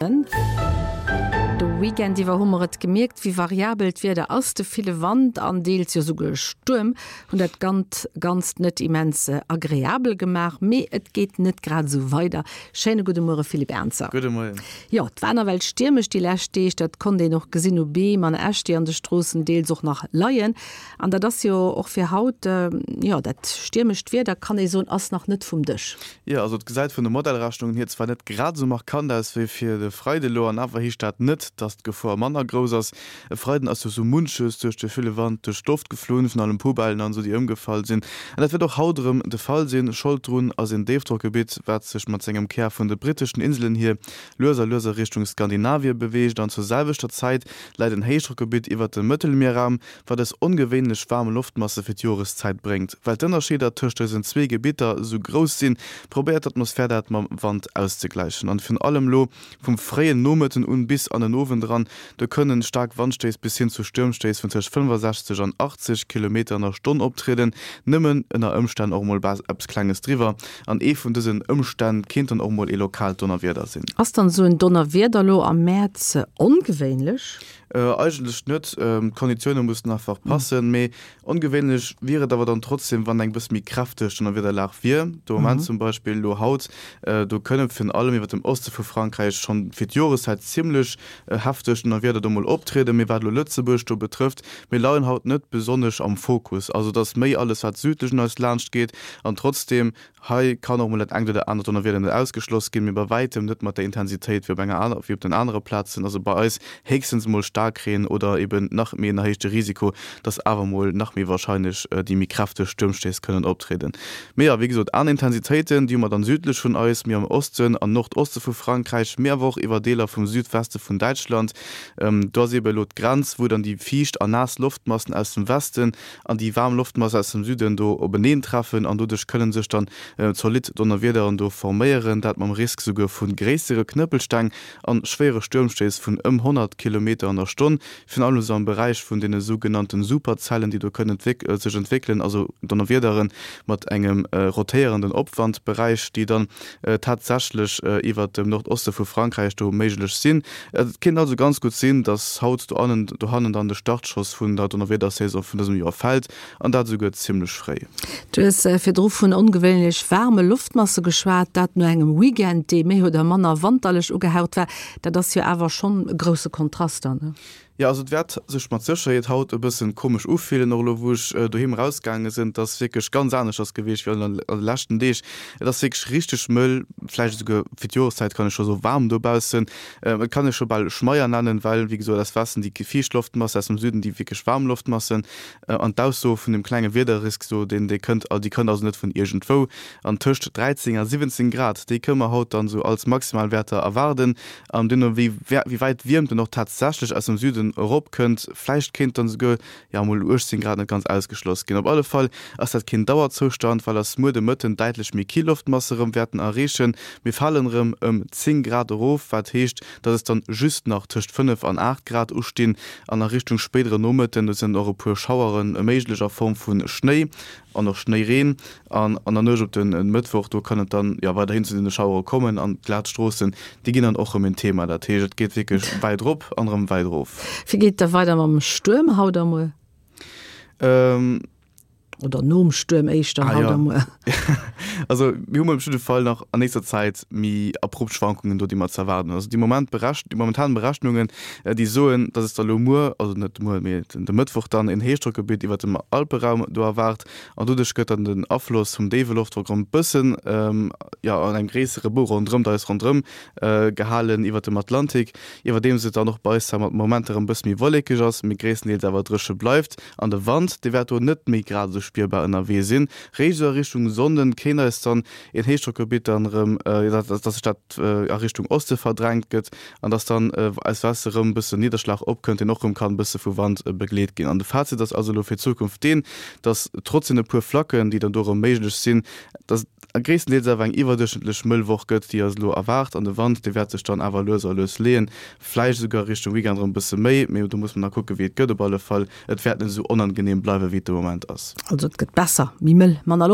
De Weekend iwwer hu mer et gemierkt, wéi variabel d'Wieder ass. De ville Wand an deels jo souguer Stuerm hunn dat Ganzt net immens agreabel gemaach. Mee et geet net grad esou weider. Schéine gudde Muere Philippe Ernzer. Gudde Moien. Jo, et war nawell stiermesch déi lescht Deeg. Dat konnt een och gesinn u Beem an Äscht, déi an de Stroossen deels och nach leien. An dat ass jo och fir haut, jo, dat stiermescht Wieder, kann ee soen, ass nach net vum Dësch. Jo, also et gesäit vun de Modellrechnungen hier zwar net grad esou markant aus wéi fir de Freide elo, an awer heescht dat net, dass d'Gefor manner grouss ass. E Freiden ass jo sou munches duerch de ville Wand duerch d'Loft geflunn, virun allem Poubellen an esou, déi ëmgefall sinn. An dat wäert och haut erëm de Fall sinn. Schold drun ass een Déifdrockgebitt, wat sech mat sengem Kär vun de britteschen Inselen hier lues a lues a Richtung Skandinavie beweegt an zur selwechter Zäit läit en Héichdrockgebitt iwwert dem Mëttelmierraum, wat eis ongewéinlech waarm Loftmasse fir d'Joreszäit bréngt. Well d'Ënnerscheeder tëscht dësen zwee Gebitter esou grouss sinn, probéiert d'Atmosphär dat mam Wand auszegläichen. An virun allem lo vum fréien Nomëtten un bis an den Owend eran, do kënnen staark Wandstéiss bis hin zu Stuermstéiss vun tëscht 65 an 80 Kilometer an der Stonn optrieden, nëmmen ënner Ëmstänn och mol eppes klenges driwwer. An ee vun dësen Ëmstänn kéint dann och mol ee lokaalt Donnerwieder sinn. Ass dann esou en Donnerwieder lo am Mäerz ongewéinlech? Eigentlech net, d'Konditioune mussen einfach passen. Mee ongewéinlech wier et awer dann trotzdem, wann eng bësse méi kräfteg Donnerwiederlag wier. De Moment zum Beispill elo haut, do kënne virun allem iwwer dem Oste vu Frankräich schonn fir d'Joreszäit zimmlech hefteg Donnerwieder do mol optrieden. Mee wat elo Lëtzebuerg do betrëfft, mir leien haut net besonnesch am Fokus. Also et ass méi alles wat südlech un eis laanscht geet an trotzdem Hei kann och mol dat engt oder anert Donnerwieder net ausgeschloss ginn, mee bei wäitem net mat der Intensitéit wéi op enger aner, wéi op den anere Plazen. Also bei eis héchstens mol Staarkreen oder eben nach méi en erhéichte Risiko, dass awer mol nach méi warscheinlech déi méi kräfteg Stuermstéiss kënnen optrieden. Mee jo, wéi gesot, aner Intensitéiten, déi hu mer dann südlech vun eis, méi am Osten an Nordoste vu Frankräich, mee awer och iwwer Deeler vum Südweste vun Däitschland. Do ass ebe elo d'Grenz, wou dann déi fiicht a naass Loftmassen aus dem Westen an déi waarm Loftmass aus dem Süden do openeen treffen an doduerch kënnen sech dann zolidd Donnerwiederen do forméieren, dat mam Risk souguer vu gréissere Knëppelsteng an schwéiere Stuermstéiss vun ëm 100 Kilometer an der Stonn, virun allem esou am Beräich vun deene sougenannte Superzellen, déi do kënnen sech entwéckelen, also Donnerwiedere mat engem rotéierenden Opwandberäich, déi dann tatsächlech iwwert dem Nordoste vu Frankräich do méiglech sinn. Et kéint also ganz gutt sinn, dass haut dohannen dann de Startschoss vun der Donnerwiedersaison vun dësem Joer fält, an dat esouguer zimmlech fréi. Du hues virdru vun ongewéinlech waarme Loftmasse geschwat, dat no engem Weekend, dee méi oder manner wanterlech ugehaucht war. Dat ass jo awer schonn e grousse Kontrast dann. Jo, also et wäert sech mat Sécherheet haut e bëssen komesch ufillen, och elo wou ech doheem erausgaange sinn. Et ass wierklech ganz aneschters gewiescht wéi an de leschten Deeg. Et ass wierklech richteg mëll, vläicht esouguer fir d'Joreszäit kann ech scho soe waarm dobaussen. Et kann ee scho bal Schmeier nennen, well wéi gesot aus Westen déi fiicht Loftmasse, aus dem Süden déi wierklech waarm Loftmassen. An d'Ausso vun dem klenge Wiederrisk do, deen dee kënnt, déi kënnt also net vun iergendwou. An tëscht 13 a 17 Grad, déi kënne mer haut dann esou als Maximalwäerter erwaarden. An duerno, wéi wéi wäit d'Wiermt dann och tatsächlech aus dem Süden erop kënnt, vläicht kéint dann esouguer, jo, mol 18 Grad net ganz ausgeschloss ginn. Op alle Fall ass dat keen Dauerzoustand, well eis muer de Mëtten däitlech méi kill Loftmasse rëm wäerten erreechen. Mir falen rëm ëm 10 Grad erof, wat heescht, dass es dann just nach tëscht 5 an 8 Grad ustinn. An a Richtung spéidere Nomëtten, do sinn dann och e puer Schauere méiglech a Form vu Schnéi an och Schnéireen. An an der Nuecht op de Mëttwoch, do kann et dann jo weiderhin zu deene Schauere kommen an d'glat Stroossen, déi ginn dann och erëm en Thema. Dat heescht, et geet wierklech wäit erop an erëm wäit erof. Wéi geet et da weider mam Stuerm haut a muer? Oder nom Stuerm éischter haut a muer? Also mir hu mol op jidde Fall nach an nächster Zäit méi abrupt Schwankungen do, déi mer ze erwaarden hunn. Also déi Moment déi momentan Berechnungen, déi soen, dass et da lo muer, also net muer, mee de Mëttwoch dann en Héichdrockgebitt iwwert dem Alperaum do erwaart, An doduerch gëtt dann den Afloss vum déiwe Loftdrock erëm bëssen, jo, an engem gréissere Bou ronderëm eis ronderëm gehalen iwwert dem Atlantik, iwwerdeems et dann och bei eis zwar mat Momenter erëm bësse méi wollekeg ass, mee gréisstendeels awer dréche bleift. An de Wand, dee wäert do net méi grad esou spierbar ënnerwee sinn. Réischt esou a Richtung Sonnden kéint eis dann een Héichdrockgebitt dann erëm, dass sech dat a Richtung Oste verdrängt gëtt, An dass dann aus Weste rëm e bëssen Nidderschlag opkënnt, deen och rëm kann e bësse vu Wand begleet ginn. An de Fazit ass also elo fir d'Zukunft deen, dass trotz deene puer Flacken, déi dann do rëm méiglech sinn, dass et gréisstendeels awer eng iwwerduerchschnëttlech mëll Woch gëtt, déi eis elo erwaart. An de Wand, dee wäert sech dann awer lues a lues leeën, vläicht esouguer Richtung Weekend rëm e bësse méi, mee do muss mer nach kucke wéi et gëtt. Op alle Fall, et wäert net esou onangeneem bleiwe wéi et de Moment ass. Also et gëtt besser, méi mëll, manner.